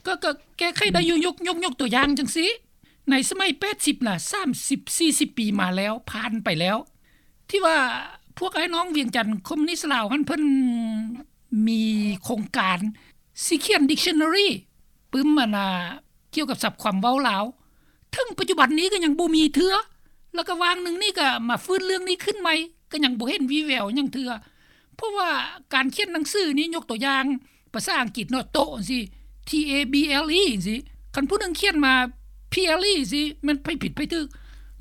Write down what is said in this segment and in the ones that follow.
ກໍ ກໍແກ້ໄຂໄດ້ຢູ່. ຍົກ ຍົກ ຍົກຕົວຢ່າງຈັ່ງຊີ້ ໃນສະໄໝແປດສິບນະ ສາມສິບສີ່ສິບປີມາແລ້ວ ຜ່ານໄປແລ້ວ ທີ່ວ່າພວກອ້າຍນ້ອງວຽງຈັນຄອມມູນິດລາວຫັ້ນ ເພິ່ນມີໂຄງການຊິຂຽນດິກຊັນນາຣີ ປຶ້ມ ອັນນ່າ ກ່ຽວກັບສັບຄວາມເວົ້າລາວ ເຖິງປັດຈຸບັນນີ້ກໍຍັງບໍ່ມີເທື່ອ ແລ້ວກໍຫວ່າງໜຶ່ງນີ້ກໍມາຟື້ນເລື່ອງນີ້ຂຶ້ນໃໝ່ ກໍຍັງບໍ່ເຫັນວີ່ແວວຫຍັງເທື່ອ. ເພາະວ່າການຂຽນໜັງສືນີ້ ຍົກຕົວຢ່າງ ພາສາອັງກິດເນາະ ໂຕະຈັ່ງຊີ້ T A B L E ຈັ່ງຊີ້ ຄັນຜູ້ໜຶ່ງຂຽນມາ P L E ຈັ່ງຊີ້ ແມ່ນໃຜຜິດໃຜຖືກ.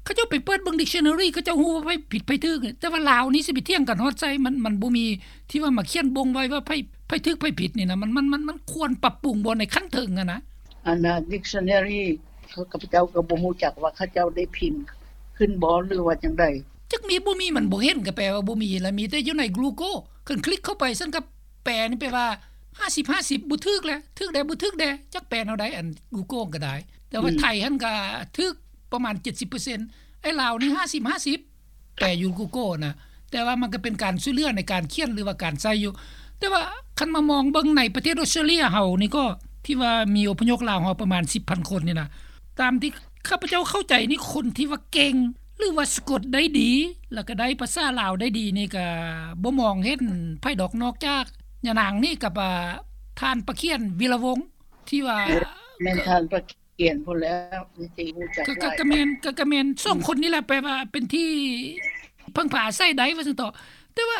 ເຂົາເຈົ້າໄປເປີດເບິ່ງດິກຊັນນາຣີ ເຂົາເຈົ້າຮູ້ວ່າໃຜຜິດໃຜຖືກ. ແຕ່ວ່າລາວນີ້ຊິໄປຖຽງກັນຮອດໃສ? ມັນ ມັນບໍ່ມີທີ່ວ່າມາຂຽນບົ່ງໄວ້ວ່າໃຜ ໃຜຖືກໃຜຜິດນີ້ນະ. ມັນ ມັນ ມັນ ມັນຄວນປັບປຸງບໍ່ໃນຂັ້ນເທິງຫັ້ນນະ. ອັນນ່າ dictionary ເຂົາ ຂ້າພະເຈົ້າກໍບໍ່ຮູ້ຈັກວ່າເຂົາເຈົ້າໄດ້ພິມຂຶ້ນບໍ່ ຫຼືວ່າຈັ່ງໃດ? ຈັກມີບໍ່ມີ ມັນບໍ່ເຫັນ ກໍແປວ່າບໍ່ມີ ລະມີແຕ່ຢູ່ໃນ Google ຄັນຄລິກເຂົ້າໄປຊັ້ນ ກໍແປນີ້ແປວ່າຫ້າສິບຫ້າສິບ ບໍ່ຖືກແຫຼະ ຖືກແດ່ບໍ່ຖືກແດ່ ຈັກແປແນວໃດ ອັນ Google ກໍໄດ້. ແຕ່ວ່າ ອືມ ໄທຫັ້ນກໍຖືກປະມານເຈັດສິບເປີເຊັນ ໄອ້ລາວນີ້ຫ້າສິບຫ້າສິບ ແປຢູ່ Google ນະ. ແຕ່ວ່າມັນກໍເປັນການຊ່ວຍເຫຼືອໃນການຂຽນ ຫຼືວ່າການໃຊ້ຢູ່. ແຕ່ວ່າຄັນມາມອງເບິ່ງໃນປະເທດອອສເຕຣເລັຍເຮົານີ້ກໍ ທີ່ວ່າມີອົບພະຍົບລາວເຮົາປະມານສິບພັນຄົນນີ້ນະ ຕາມທີ່ຂ້າພະເຈົ້າເຂົ້າໃຈນີ້ ຄົນທີ່ວ່າເກັ່ງ ຫຼືວ່າສະກົດໄດ້ດີ ແລ້ວກໍໄດ້ພາສາລາວໄດ້ດີນີ້ ກໍບໍ່ມອງເຫັນໃຜດອກ ນອກຈາກຍານາງນີ້ກັບ ອາ ທ່ານປະຂຽນ ວິລະວົງ ທີ່ວ່າ ແມ່ນທ່ານປະຂຽນພຸ້ນແຫຼ້ວ ທີ່ຮູ້ຈັກ ກໍ ກໍ ຫຼາຍ ກໍແມ່ນ ກໍ ກໍແມ່ນສອງຄົນນີ້ແຫຼະ ແປວ່າເປັນທີ່ເພິ່ງພາອາໄສໄດ້ວ່າຊັ້ນເຖາະ. ແຕ່ວ່າ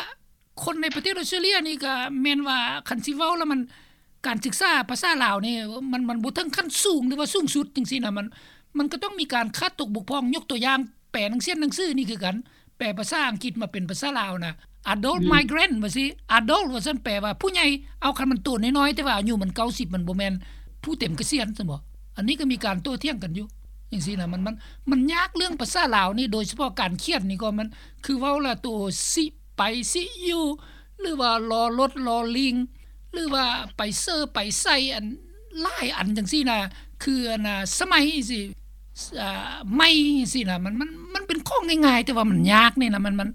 ຄົນໃນປະເທດອອສເຕຣເລັຍນີ້ກໍແມ່ນວ່າ ຄັນຊິເວົ້າແລ້ວມັນ ການສຶກສາພາສາລາວນີ້ ມັນ ມັນບໍ່ເຖິງຂັ້ນສູງ ຫຼືວ່າສູງສຸດຈັ່ງຊີ້ນະ. ມັນ ມັນກໍຕ້ອງມີການຂາດຕົກບົກຜ່ອງ. ຍົກຕົວຢ່າງ ແປໜັງ ຂຽນໜັງສືນີ້ຄືກັນ ແປພາສາອັງກິດມາເປັນພາສາລາວນະ adult ອືມ migrant ວ່າຊີ້ adult ວ່າຊັ້ນ ແປວ່າຜູ້ໃຫຍ່. ເອົາ ຄັນມັນໂຕນ້ອຍໆ ແຕ່ວ່າອາຍຸມັນເກົ້າສິບ ມັນບໍ່ແມ່ນຜູ້ເຕັມກະສຽນຊັ້ນບໍ? ອັນນີ້ກໍມີການໂຕ້ຖຽງກັນຢູ່ຈັ່ງຊີ້ນະ. ມັນ ມັນ ມັນຍາກເລື່ອງພາສາລາວນີ້ ໂດຍສະເພາະການຂຽນນີ້ກໍ ມັນ ຄືເວົ້າລະ ໂຕ ຊິ ໄປ ຊິ ຢູ່ ຫຼືວ່າ ລໍລົດ ລໍລີງ ຫຼືວ່າ ໄປເຊີ ໄປໃສ່ ອັນ ຫຼາຍອັນຈັ່ງຊີ້ນະ ຄື ອັນນ່າ ສະໄໝ ຊິ ອາ ໄໝ ຊິນະ. ມັນ ມັນ ມັນເປັນຂອງງ່າຍໆ ແຕ່ວ່າມັນຍາກນີ້ນະ. ມັນ ມັນ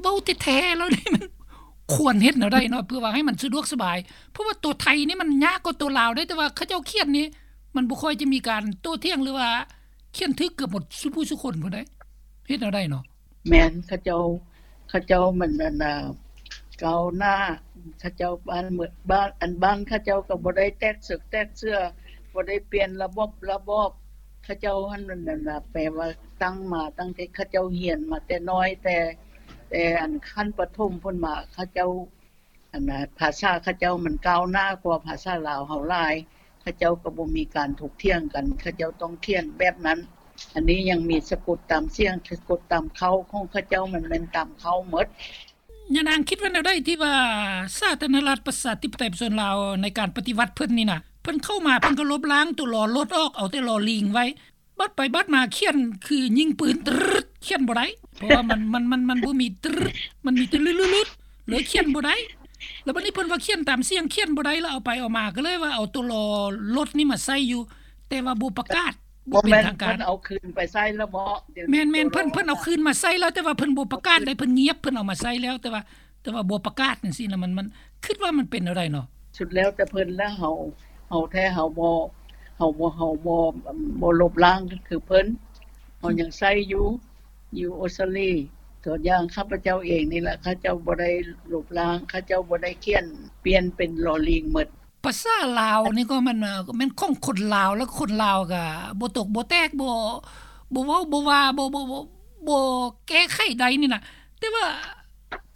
ເວົ້າແທ້ໆແລ້ວນີ້ ມັນຄວນເຮັດແນວໃດເນາະ ເພື່ອວ່າໃຫ້ມັນສະດວກສະບາຍ? ເພາະວ່າໂຕໄທນີ້ມັນຍາກກວ່າໂຕລາວເດ້ ແຕ່ວ່າເຂົາເຈົ້າຂຽນນີ້ ມັນບໍ່ຄ່ອຍຈະມີການໂຕ້ຖຽງ ຫຼືວ່າຂຽນຖືກເກືອບໝົດສູ່ຜູ້ສູ່ຄົນພຸ້ນໃດ. ເຮັດແນວໃດເນາະ? ແມ່ນ ເຂົາເຈົ້າ ເຂົາເຈົ້າມັນ ອັນນ່າ ກ້າວໜ້າ ເຂົາເຈົ້າບ້ານເມືອງ ບ້ານ ອັນ ບ້ານເຂົາເຈົ້າກໍບໍ່ໄດ້ແຕກເສິກແຕກເສື້ອ ບໍ່ໄດ້ປ່ຽນລະບົບລະບອບ. ເຂົາເຈົ້າຫັ້ນ ອັນນ່າ ແປວ່າຕັ້ງມາຕັ້ງແຕ່ເຂົາເຈົ້າຮຽນມາແຕ່ນ້ອຍ ແຕ່ ແຕ່ ອັນ ຂັ້ນປະຖົມພຸ້ນມາ ເຂົາເຈົ້າ ອັນນ່າ ພາສາເຂົາເຈົ້າມັນກ້າວໜ້າກວ່າພາສາລາວເຮົາຫຼາຍ. ເຂົາເຈົ້າກໍບໍ່ມີການຖົກຖຽງກັນ ເຂົາເຈົ້າຕ້ອງຂຽນແບບນັ້ນ. ອັນນີ້ຍັງມີສະກົດຕາມສຽງ ສະກົດຕາມເຄົ້າຂອງເຂົາເຈົ້າ ມັນແມ່ນຕາມເຄົ້າໝົດ. ຍານາງຄິດວ່າແນວໃດທີ່ວ່າສາທາລະນະລັດປະຊາທິປະໄຕປະຊາຊົນລາວໃນການປະຕິວັດເພິ່ນນີ້ນະ ເພິ່ນເຂົ້າມາເພິ່ນກໍລົບລ້າງຕົວ ລໍລົດ ອອກ ເອົາແຕ່ ລໍລີງ ໄວ້ ບັດໄປບັດມາຂຽນຄືຍິງປືນ ຕຣຶດ ຂຽນບໍ່ໄດ້ ເພາະວ່າມັນ ມັນ ມັນ ມັນບໍ່ມີ ຕຣຶດ ມັນມີແຕ່ ລຶດ ເລີຍຂຽນບໍ່ໄດ້. ແລ້ວບັດນີ້ເພິ່ນວ່າຂຽນຕາມສຽງຂຽນບໍ່ໄດ້ ແລ້ວເອົາໄປເອົາມາກໍເລີຍວ່າເອົາຕົວລໍລົດນີ້ມາໃສ່ຢູ່ ແຕ່ວ່າບໍ່ປະກາດ ບໍ່ເປັນທາງການ. ເພິ່ນເອົາຄືນໄປໃສ່ແລ້ວບໍ? ແມ່ນໆ ເພິ່ນ ເພິ່ນເອົາຄືນມາໃສ່ແລ້ວ ແຕ່ວ່າເພິ່ນບໍ່ປະກາດເດ້ ເພິ່ນງຽບ ເພິ່ນເອົາມາໃສ່ແລ້ວ ແຕ່ວ່າ ແຕ່ວ່າບໍ່ປະກາດຈັ່ງຊີ້ນະ. ມັນ ມັນ ຄິດວ່າມັນເປັນແນວໃດເນາະ? ສຸດແລ້ວແຕ່ເພິ່ນລະ. ເຮົາ ເຮົາແທ້ເຮົາບໍ່ ເຮົາບໍ່ ເຮົາບໍ່ ບໍ່ລົບລ້າງຄືເພິ່ນ ເຮົາຍັງໃຊ້ຢູ່ ຢູ່ອົດສະຕາລີ. ຕົວຢ່າງຂ້າພະເຈົ້າເອງນີ້ລະ ເຂົາເຈົ້າບໍ່ໄດ້ລົບລ້າງ ເຂົາເຈົ້າບໍ່ໄດ້ຂຽນປ່ຽນເປັນ ລໍລີງ ໝົດ. ພາສາລາວນີ້ກໍແມ່ນ ແມ່ນຂອງຄົນລາວ ແລ້ວຄົນລາວກໍບໍ່ຕົກບໍ່ແຕກ ບໍ່ ບໍ່ເວົ້າບໍ່ວ່າ ບໍ່ ບໍ່ ບໍ່ ບໍ່ແກ້ໄຂໄດ້ນີ້ນະ. ແຕ່ວ່າ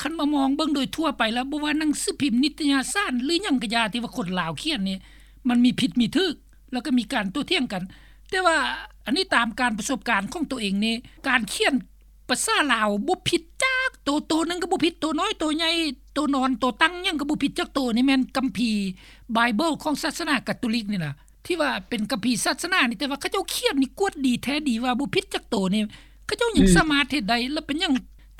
ຄັນມາມອງເບິ່ງໂດຍທົ່ວໄປແລ້ວ ບໍ່ວ່າໜັງສືພິມ ນິດຕະຍະສານ ຫຼື ຫຍັງກະຢ່າ ທີ່ວ່າຄົນລາວຂຽນນີ້ ມັນມີຜິດມີຖືກ ແລ້ວກໍມີການໂຕ້ຖຽງກັນ. ແຕ່ວ່າອັນນີ້ຕາມການປະສົບການຂອງໂຕເອງນີ້ ການຂຽນພາສາລາວບໍ່ຜິດຈັກໂຕ ໂຕໜຶ່ງກໍບໍ່ຜິດ ໂຕນ້ອຍ ໂຕໃຫຍ່ ໂຕນອນ ໂຕຕັ້ງ ຫຍັງກໍບໍ່ຜິດຈັກໂຕ. ນີ້ແມ່ນຄຳພີ Bible ຂອງສາສະໜາກາໂຕລິກນີ້ນະ ທີ່ວ່າເປັນຄຳພີສາສະໜານີ້ ແຕ່ວ່າເຂົາເຈົ້າຂຽນນີ້ກວດດີແທ້ດີວ່າບໍ່ຜິດຈັກໂຕນີ້ ເຂົາເຈົ້າຍັງ ອືມ ສາມາດເຮັດໄດ້. ແລ້ວເປັນຫຍັງ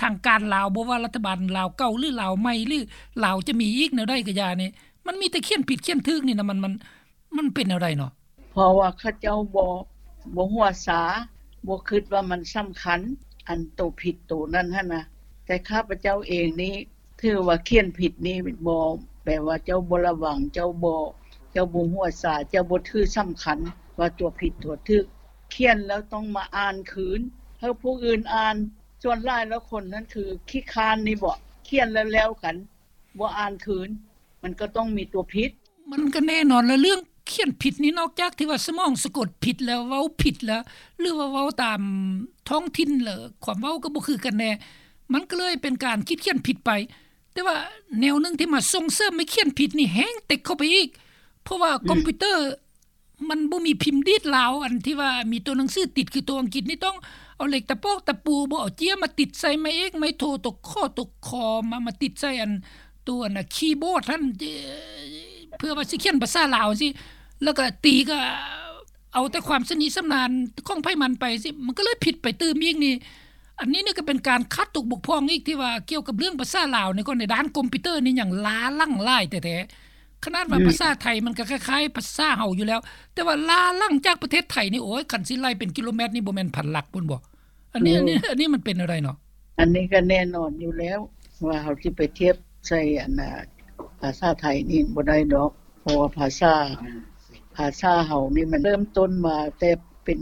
ທາງການລາວ ບໍ່ວ່າລັດຖະບານລາວເກົ່າ ຫຼື ລາວໃໝ່ ຫຼື ລາວຈະມີອີກແນວໃດກໍຢ່ານີ້ ມັນມີແຕ່ຂຽນຜິດຂຽນຖືກນີ້ນະ ມັນ ມັນ ມັນເປັນແນວໃດເນາະ? ເພາະວ່າເຂົາເຈົ້າບໍ່ ບໍ່ຫົວຊາ ບໍ່ຄິດວ່າມັນສຳຄັນ ອັນໂຕຜິດໂຕນັ້ນຫັ້ນນະ. ແຕ່ຂ້າພະເຈົ້າເອງນີ້ ຖືວ່າຂຽນຜິດນີ້ບໍ່ ແປວ່າເຈົ້າບໍ່ລະວັງ ເຈົ້າບໍ່ ເຈົ້າບໍ່ຮູ້ພາສາ ເຈົ້າບໍ່ຖືສຳຄັນວ່າຕົວຜິດຕົວຖືກ ຂຽນແລ້ວຕ້ອງມາອ່ານຄືນ ໃຫ້ຜູ້ອື່ນອ່ານ. ສ່ວນຫຼາຍແລ້ວຄົນນັ້ນຄືຂີ້ຄ້ານນີ້ບໍ ຂຽນແລ້ວແລ້ວກັນ ບໍ່ອ່ານຄືນ ມັນກໍຕ້ອງມີຕົວຜິດ. ມັນກໍແນ່ນອນລະ ເລື່ອງຂຽນຜິດນີ້ ນອກຈາກທີ່ວ່າສະໝອງສະກົດຜິດແລ້ວ ເວົ້າຜິດແລ້ວ ຫຼືວ່າເວົ້າຕາມທ້ອງຖິ່ນແລ້ວ ຄວາມເວົ້າກໍບໍ່ຄືກັນແນ່ ມັນກໍເລີຍເປັນການຄິດຂຽນຜິດໄປ. ແຕ່ວ່າແນວໜຶ່ງທີ່ມາສົ່ງເສີມໃຫ້ຂຽນຜິດນີ້ແຮງເຕັກເຂົ້າໄປອີກ ເພາະວ່າ ອືມ ຄອມພິວເຕີ ມັນບໍ່ມີພິມດີດລາວ ອັນທີ່ວ່າມີຕົວໜັງສືຕິດ ຄືຕົວອັງກິດນີ້ຕ້ອງເອົາເຫຼັກຕະປອກຕະປູ ບໍ່ເອົາເຈ້ຍມາຕິດໃສ່ໄມ້ເອກໄມ້ໂທ ຕົວຂໍຕົວຄໍ ມາ ມາຕິດໃສ່ອັນ ຕົວອັນນະຄີບອດຫັ້ນ ເພື່ອວ່າຊິຂຽນພາສາລາວຈັ່ງຊີ້ ແລ້ວກໍຕີກໍເອົາແຕ່ຄວາມຊຳນິຊຳນານຂອງໃຜມັນໄປຊີ້ ມັນກໍເລີຍຜິດໄປຕື່ມອີກນີ້. ອັນນີ້ນີ້ກໍເປັນການຂາດຕົກບົກຜ່ອງອີກ ທີ່ວ່າກ່ຽວກັບເລື່ອງພາສາລາວນີ້ ກໍໃນດ້ານຄອມພິວເຕີນີ້ຍັງລ້າຫຼັງຫຼາຍແທ້ໆ ຂະໜາດວ່າ ອືມ ພາສາໄທມັນກໍຄ້າຍໆພາສາເຮົາຢູ່ແລ້ວ ແຕ່ວ່າລ້າຫຼັງຈາກປະເທດໄທນີ້ ໂອ້ຍ ຄັນຊິໄລ່ເປັນກິໂລແມັດນີ້ ບໍ່ແມ່ນພັນຫຼັກພຸ້ນບໍ? ອັນນີ້ ໂອ້ ອັນນີ້ ອັນນີ້ມັນເປັນແນວໃດເນາະ? ອັນນີ້ກໍແນ່ນອນຢູ່ແລ້ວ ວ່າເຮົາຊິໄປທຽບໃສ່ອັນນະ ພາສາໄທນີ້ບໍ່ໄດ້ດອກ ເພາະວ່າພາສາ ພາສາເຮົານີ້ມັນເລີ່ມຕົ້ນມາແຕ່ເປັນ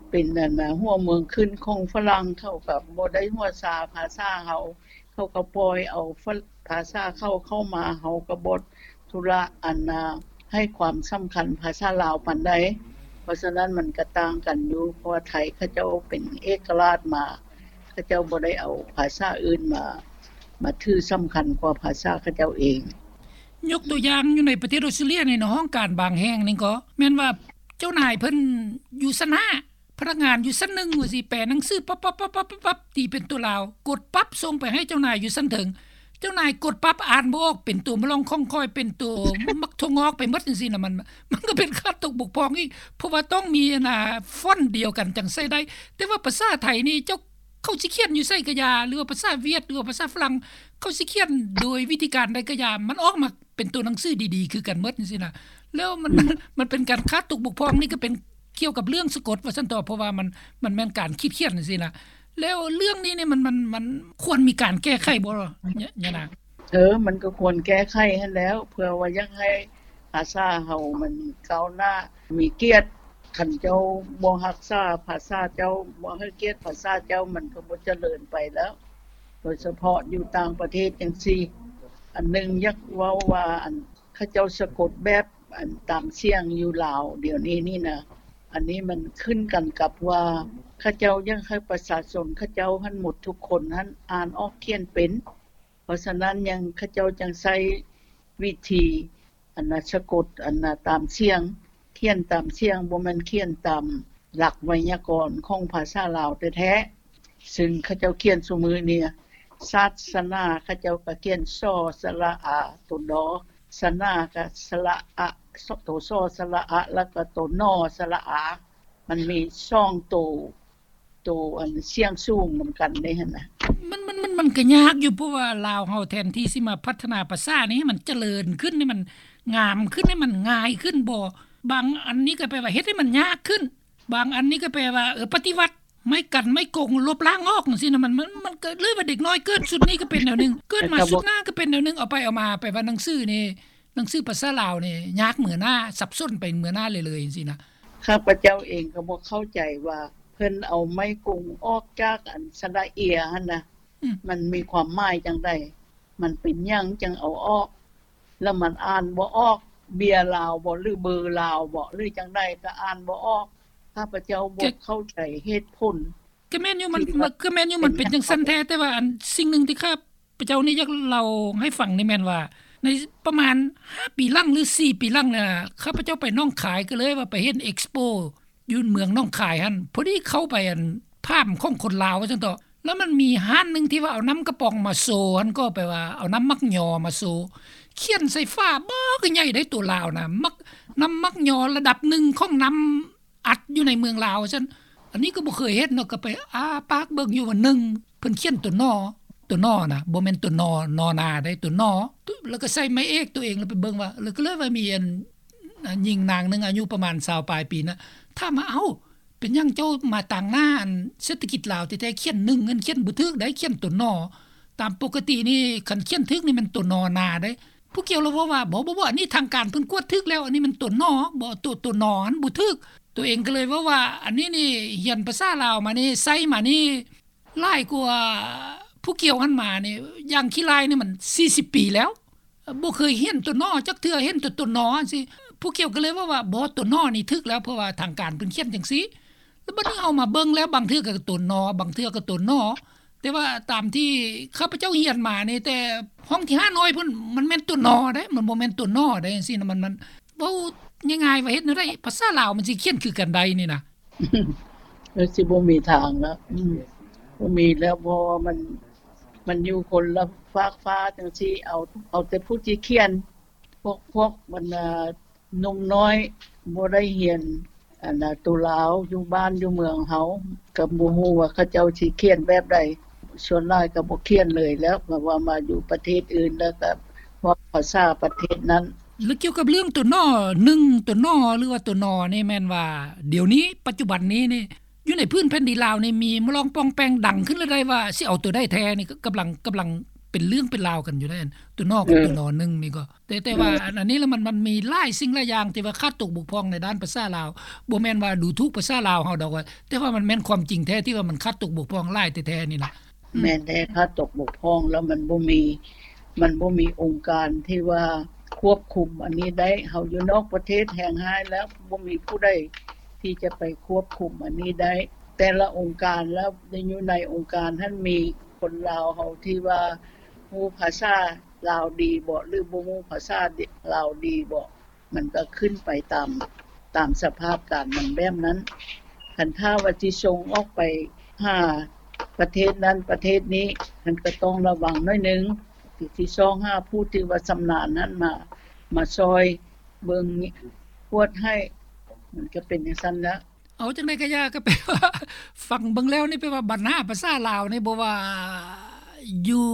ເປັນອັນນະ ຫົວເມືອງຂຶ້ນຂອງຝຣັ່ງ ເຂົາກໍບໍ່ໄດ້ຫົວຊາພາສາເຮົາ ເຂົາກໍປ່ອຍເອົາ ພາສາເຂົາເຂົ້າມາ ເຮົາກໍບໍ່ທຸລະອັນນະ ໃຫ້ຄວາມສຳຄັນພາສາລາວປານໃດ. ເພາະສະນັ້ນມັນກໍຕ່າງກັນຢູ່ ເພາະວ່າໄທເຂົາເຈົ້າເປັນເອກະລາດມາ ເຂົາເຈົ້າບໍ່ໄດ້ເອົາພາສາອື່ນມາ ມາຖືສຳຄັນກວ່າພາສາເຂົາເຈົ້າເອງ. ຍົກຕົວຢ່າງ ຢູ່ໃນປະເທດອອສເຕຣເລຍນີ້ເນາະ ຫ້ອງການບາງແຫ່ງນີ້ກໍແມ່ນວ່າເຈົ້ານາຍເພິ່ນຢູ່ຊັ້ນຫ້າ ພະນັກງານຢູ່ຊັ້ນໜຶ່ງວ່າຊິແປໜັງສືປັບໆໆໆ ຕີເປັນຕົວລາວ ກົດປັບສົ່ງໄປໃຫ້ເຈົ້ານາຍຢູ່ຊັ້ນເທິງ ເຈົ້ານາຍກົດປັບອ່ານບໍ່ອອກ ເປັນຕົວມະລ່ອງຂ້ອງຄ້ອຍ ເປັນຕົວໝາກຖົ່ວງອກໄປໝົດຈັ່ງຊີ້ນະ ມັນ ມັນກໍເປັນຂາດຕົກບົກຜ່ອງອີກ ເພາະວ່າຕ້ອງມີອັນນະ ຟອນດຽວກັນຈັ່ງໃຊ້ໄດ້ ແຕ່ວ່າພາສາໄທນີ້ ເຈົ້າ ເຂົາຊິຂຽນຢູ່ໃສກໍຢ່າ ຫຼືວ່າພາສາຫວຽດ ຫຼືວ່າພາສາຝຣັ່ງ ເຂົາຊິຂຽນໂດຍວິທີການໃດກໍຢ່າ ມັນອອກມາເປັນຕົວໜັງສືດີໆຄືກັນໝົດຈັ່ງຊີ້ນະ ແລ້ວມັນ ອືມ ມັນເປັນການຂາດຕົກບົກຜ່ອງ ນີ້ກໍເປັນກ່ຽວກັບເລື່ອງສະກົດວ່າຊັ້ນເຖາະ ເພາະວ່າມັນ ມັນແມ່ນການຄິດຂຽນຈັ່ງຊີ້ນະ ແລ້ວເລື່ອງນີ້ນີ້ ມັນ ມັນ ມັນຄວນມີການແກ້ໄຂບໍ່ ຍານາງ? ເອີ ມັນກໍຄວນແກ້ໄຂຫັ້ນແຫຼ້ວ ເພື່ອວ່າຢາກໃຫ້ພາສາເຮົາມັນກ້າວໜ້າ ມີກຽດ ຄັນເຈົ້າບໍ່ຮັກສາພາສາເຈົ້າ ບໍ່ໃຫ້ກຽດພາສາເຈົ້າ ມັນກໍບໍ່ຈະເລີນໄປແລ້ວ ໂດຍສະເພາະຢູ່ຕ່າງປະເທດຈັ່ງຊີ້. ອັນໜຶ່ງຢາກເວົ້າວ່າ ອັນ ເຂົາເຈົ້າສະກົດແບບ ອັນ ຕາມສຽງຢູ່ລາວດຽວນີ້ນີ້ນະ ອັນນີ້ມັນຂຶ້ນກັນກັບວ່າ ເຂົາເຈົ້າຢາກໃຫ້ປະຊາຊົນເຂົາເຈົ້າຫັ້ນໝົດທຸກຄົນຫັ້ນອ່ານອອກຂຽນເປັນ ເພາະສະນັ້ນຍັງ ເຂົາເຈົ້າຈັ່ງໃຊ້ວິທີ ອັນນະ ສະກົດ ອັນນະ ຕາມສຽງ ຂຽນຕາມສຽງ ບໍ່ແມ່ນຂຽນຕາມຫຼັກໄວຍາກອນຂອງພາສາລາວແທ້ໆ ຊຶ່ງເຂົາເຈົ້າຂຽນຊຸມື້ນີ້ ສາສະໜາ ເຂົາເຈົ້າກໍຂຽນ ສ ສະຫຼະອາ ໂຕ ດ ສະໜາ ກໍສະຫຼະອະ ໂຕ ສ ສະຫຼະອະ ແລ້ວກໍໂຕ ນ ສະຫຼະອາ ມັນມີສອງໂຕ ໂຕອັນສຽງສູງນຳກັນເດ້ຫັ້ນນະ. ມັນ ມັນ ມັນ ມັນກໍຍາກຢູ່ ເພາະວ່າລາວເຮົາແທນທີ່ຊິມາພັດທະນາພາສານີ້ໃຫ້ມັນຈະເລີນຂຶ້ນ ໃຫ້ມັນງາມຂຶ້ນ ໃຫ້ມັນງ່າຍຂຶ້ນບໍ ບາງອັນນີ້ກໍແປວ່າເຮັດໃຫ້ມັນຍາກຂຶ້ນ ບາງອັນນີ້ກໍແປວ່າ ເອີ ປະຕິວັດ ໄມ້ກັນໄມ້ກົງ ລົບລ້າງອອກຈັ່ງຊີ້ນະ ມັນ ມັນ ມັນກໍເລີຍວ່າເດັກນ້ອຍເກີດຊຸດນີ້ກໍເປັນແນວໜຶ່ງ ເກີດມາຊຸດໜ້າກໍເປັນແນວໜຶ່ງ ເອົາໄປເອົາມາ ແປວ່າໜັງສືນີ້ ໜັງສືພາສາລາວນີ້ຍາກເໝືອໜ້າ ສັບສົນໄປເໝືອໜ້າເລື້ອຍໆ ຈັ່ງຊີ້ນະ. ຂ້າພະເຈົ້າເອງກໍບໍ່ເຂົ້າໃຈວ່າ ເພິ່ນເອົາໄມ້ກົງອອກຈາກອັນສະຫຼະເອຍຫັ້ນນະ ອືມ ມັນມີຄວາມໝາຍຈັ່ງໃດ? ມັນເປັນຫຍັງຈັ່ງເອົາອອກ? ແລ້ວມັນອ່ານບໍ່ອອກ ເບຍລາວບໍ ຫຼື ເບີລາວບໍ ຫຼື ຈັ່ງໃດກໍອ່ານບໍ່ອອກ. ຂ້າພະເຈົ້າບໍ່ເຂົ້າໃຈເຫດຜົນ. ກໍແມ່ນຢູ່ ມັນ ກໍແມ່ນຢູ່ ມັນເປັນຈັ່ງຊັ້ນແທ້ ແຕ່ວ່າອັນສິ່ງໜຶ່ງທີ່ຂ້າພະເຈົ້ານີ້ຢາກເລົ່າໃຫ້ຟັງນີ້ແມ່ນວ່າ ໃນປະມານຫ້າປີຫຼັງ ຫຼື ສີ່ປີຫຼັງນີ້ ຂ້າພະເຈົ້າໄປໜອງຄາຍ ກໍເລີຍວ່າໄປເຫັນເອັກສະໂປຢູ່ເມືອງໜອງຄາຍຫັ້ນ ພໍດີເຂົ້າໄປອັນຟາມຂອງຄົນລາວວ່າຊັ້ນເຖາະ ແລ້ວມັນມີຮ້ານໜຶ່ງທີ່ວ່າເອົານ້ຳກະປ໋ອງມາໂຊຫັ້ນ ກໍແປວ່າເອົານ້ຳໝາກຍໍມາໂຊ ຂຽນໃສ່ຝາບັກໃຫຍ່ໄດ້ ຕົວລາວນະ ໝາກ ນ້ຳໝາກຍໍລະດັບໜຶ່ງຂອງນ້ຳ ອັດຢູ່ໃນເມືອງລາວວ່າຊັ້ນ. ອັນນີ້ກໍບໍ່ເຄີຍເຫັນເນາະ ກໍໄປອ້າປາກເບິ່ງຢູ່ວ່າ ໜຶ່ງ ເພິ່ນຂຽນຕົວ ນ ຕົວ ນ ນະ ບໍ່ແມ່ນຕົວ ນ ນ ນາເດ້ ຕົວ ນ ແລ້ວກໍໃສ່ໄມ້ເອກຕົວເອງ ແລ້ວໄປເບິ່ງວ່າ ແລ້ວກໍເລີຍວ່າມີອັນ ອາ ຍິງນາງໜຶ່ງອາຍຸປະມານຊາວປາຍປີນະ ຖາມວ່າ ເອົ້າ ເປັນຫຍັງເຈົ້າມາຕາງໜ້າອັນເສດຖະກິດລາວແທ້ໆ ຂຽນ ໜຶ່ງ ຫັ້ນຂຽນບໍ່ຖືກໃດ໋ ຂຽນຕົວ ນ ຕາມປົກກະຕິນີ້ ຄັນຂຽນຖືກນີ້ແມ່ນຕົວ ນ ນາເດ້. ຜູ້ກ່ຽວລະເວົ້າວ່າ ບໍ່ໆໆ ອັນນີ້ທາງການເພິ່ນກວດຖືກແລ້ວ ອັນນີ້ມັນຕົວ ນ ບໍ່ ຕົວ ຕົວ ນ ອັນບໍ່ຖືກ. ໂຕເອງກໍເລີຍເວົ້າວ່າ ອັນນີ້ນີ້ຮຽນພາສາລາວມານີ້ ໃຊ້ມານີ້ຫຼາຍກວ່າຜູ້ກ່ຽວຫັ້ນມານີ້ ຢ່າງຂີ້ລ້າຍນີ້ມັນສີ່ສິບປີແລ້ວ ບໍ່ເຄີຍຮຽນຕົວ ນ ຈັກເທື່ອ ຮຽນແຕ່ຕົວ ນ ຈັ່ງຊີ້. ຜູ້ກ່ຽວກໍເລີຍເວົ້າວ່າ ບໍ່ ຕົວ ນ ນີ້ຖືກແລ້ວ ເພາະວ່າທາງການເພິ່ນຂຽນຈັ່ງຊີ້. ແລ້ວບັດນີ້ເຮົາມາເບິ່ງແລ້ວ ບາງເທື່ອກໍຕົວ ນ ບາງເທື່ອກໍຕົວ ນ ແຕ່ວ່າຕາມທີ່ຂ້າພະເຈົ້າຮຽນມານີ້ ແຕ່ຫ້ອງທີຫ້ານ້ອຍພຸ້ນ ມັນແມ່ນຕົວ ນ ເດ້ ມັນບໍ່ແມ່ນຕົວ ນ ເດ້ ຈັ່ງຊີ້ນະ. ມັນ ມັນ ເວົ້າງ່າຍໆວ່າເຮັດແນວໃດພາສາລາວມັນຊິຂຽນຄືກັນໄດ້ນີ້ນະ? ມັນຊິບໍ່ມີທາງແລ້ວ ອືມ ບໍ່ມີແລ້ວ ເພາະວ່າມັນ ມັນຢູ່ຄົນລະຟາກຟ້າຈັ່ງຊີ້. ເອົາ ເອົາແຕ່ຜູ້ທີ່ຂຽນ ພວກ ພວກບັນດາໜຸ່ມນ້ອຍບໍ່ໄດ້ຮຽນ ອັນນະ ໂຕລາວຢູ່ບ້ານຢູ່ເມືອງເຮົາ ກໍບໍ່ຮູ້ວ່າເຂົາເຈົ້າຊິຂຽນແບບໃດ. ສ່ວນຫຼາຍກໍບໍ່ຂຽນເລີຍແລ້ວ ເພາະວ່າມາຢູ່ປະເທດອື່ນແລ້ວກໍເວົ້າພາສາປະເທດນັ້ນ. ແລ້ວກ່ຽວກັບເລື່ອງຕົວ ນ ໜຶ່ງ ຕົວ ນ ຫຼືວ່າຕົວ ນ ນີ້ ແມ່ນວ່າດຽວນີ້ ປັດຈຸບັນນີ້ນີ້ ຢູ່ໃນພື້ນແຜ່ນດິນລາວນີ້ ມີມາລອງປ່ອງແປງດັງຂຶ້ນແລ້ວໄດ້ວ່າ ຊິເອົາຕົວໃດແທ້ນີ້ ກຳລັງ ກຳລັງເປັນເລື່ອງເປັນລາວກັນຢູ່ໃດ໋ ຕົວ ນ ກັບຕົວ ນ ໜຶ່ງ ນີ້ກໍ ແຕ່ ແຕ່ວ່າ ອືມ ອັນ ອັນນີ້ລະ ມັນ ມັນມີຫຼາຍສິ່ງຫຼາຍຢ່າງທີ່ວ່າຂາດຕົກບົກຜ່ອງໃນດ້ານພາສາລາວ. ບໍ່ແມ່ນວ່າດູຖູກພາສາລາວເຮົາດອກ ວ່າ ແຕ່ວ່າມັນແມ່ນຄວາມຈິງແທ້ທີ່ວ່າມັນຂາດຕົກບົກຜ່ອງຫຼາຍແທ້ໆນີ້ນະ. ອືມ ແມ່ນແທ້ ຂາດຕົກບົກຜ່ອງ ແລ້ວມັນບໍ່ມີ ມັນບໍ່ມີອົງການທີ່ວ່າຄວບຄຸມອັນນີ້ໄດ້. ເຮົາຢູ່ນອກປະເທດແຮງຮ້າຍແລ້ວ ບໍ່ມີຜູ້ໃດທີ່ຈະໄປຄວບຄຸມອັນນີ້ໄດ້. ແຕ່ລະອົງການແລ້ວ ໄດ້ຢູ່ໃນອົງການຫັ້ນ ມີຄົນລາວເຮົາທີ່ວ່າຮູ້ພາສາລາວດີບໍ ຫຼືບໍ່ຮູ້ພາສາລາວດີບໍ ມັນກໍຂຶ້ນໄປຕາມ ຕາມສະພາບການມັນແບບນັ້ນ. ຄັນຖ້າວ່າຊິສົ່ງອອກໄປຫາປະເທດນັ້ນປະເທດນີ້ ມັນກໍຕ້ອງລະວັງໜ້ອຍໜຶ່ງ ຊິຊອກຫາຜູ້ທີ່ວ່າຊຳນານນັ້ນມາ ມາຊ່ອຍເບິ່ງກວດໃຫ້ ມັນກໍເປັນຈັ່ງຊັ້ນລະ. ເອົາ ຈັ່ງໃດກໍຢ່າ ກໍແປວ່າ ຟັງເບິ່ງແລ້ວນີ້ ແປວ່າບັນຫາພາສາລາວນີ້ ບໍ່ວ່າຢູ່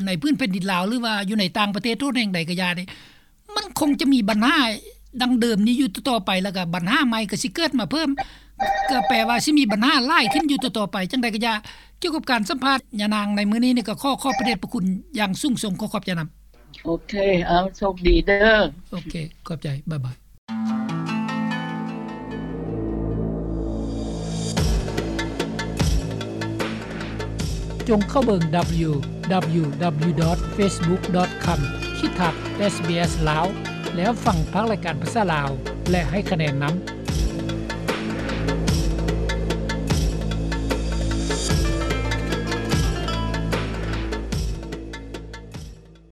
ໃນພື້ນແຜ່ນດິນລາວ ຫຼືວ່າຢູ່ໃນຕ່າງປະເທດໂທດແຫ່ງໃດກໍຢ່ານີ້ ມັນຄົງຈະມີບັນຫາດັ່ງເດີມນີ້ຢູ່ຕໍ່ໆໄປ ແລ້ວກໍບັນຫາໃໝ່ກໍຊິເກີດມາເພີ່ມ ກໍແປວ່າຊິມີບັນຫາຫຼາຍຂຶ້ນຢູ່ຕໍ່ໆໄປ. ຈັ່ງໃດກໍຢ່າ ກ່ຽວກັບການສຳພາດຍານາງໃນມື້ນີ້ນີ້ ກໍຂໍຂອບພະເດດພະຄຸນຢ່າງສູງສົ່ງ. ຂໍຂອບໃຈນຳ. ໂອເຄ ເອົາ ໂຊກດີເດີ. ໂອເຄ ຂອບໃຈ ບາຍບາຍ. ຈົ່ງເຂົ້າເບິ່ງ ດັບເບິນຢູດັບເບິນຢູດັບເບິນຢູ ດອດ ເຟສບຸກ ດອດ ຄອມ ຂີດທັດ ເອສບີເອສ ລາວ ແລ້ວຟັງພາກລາຍການພາສາລາວ ແລະ ໃຫ້ຄະແນນນຳ.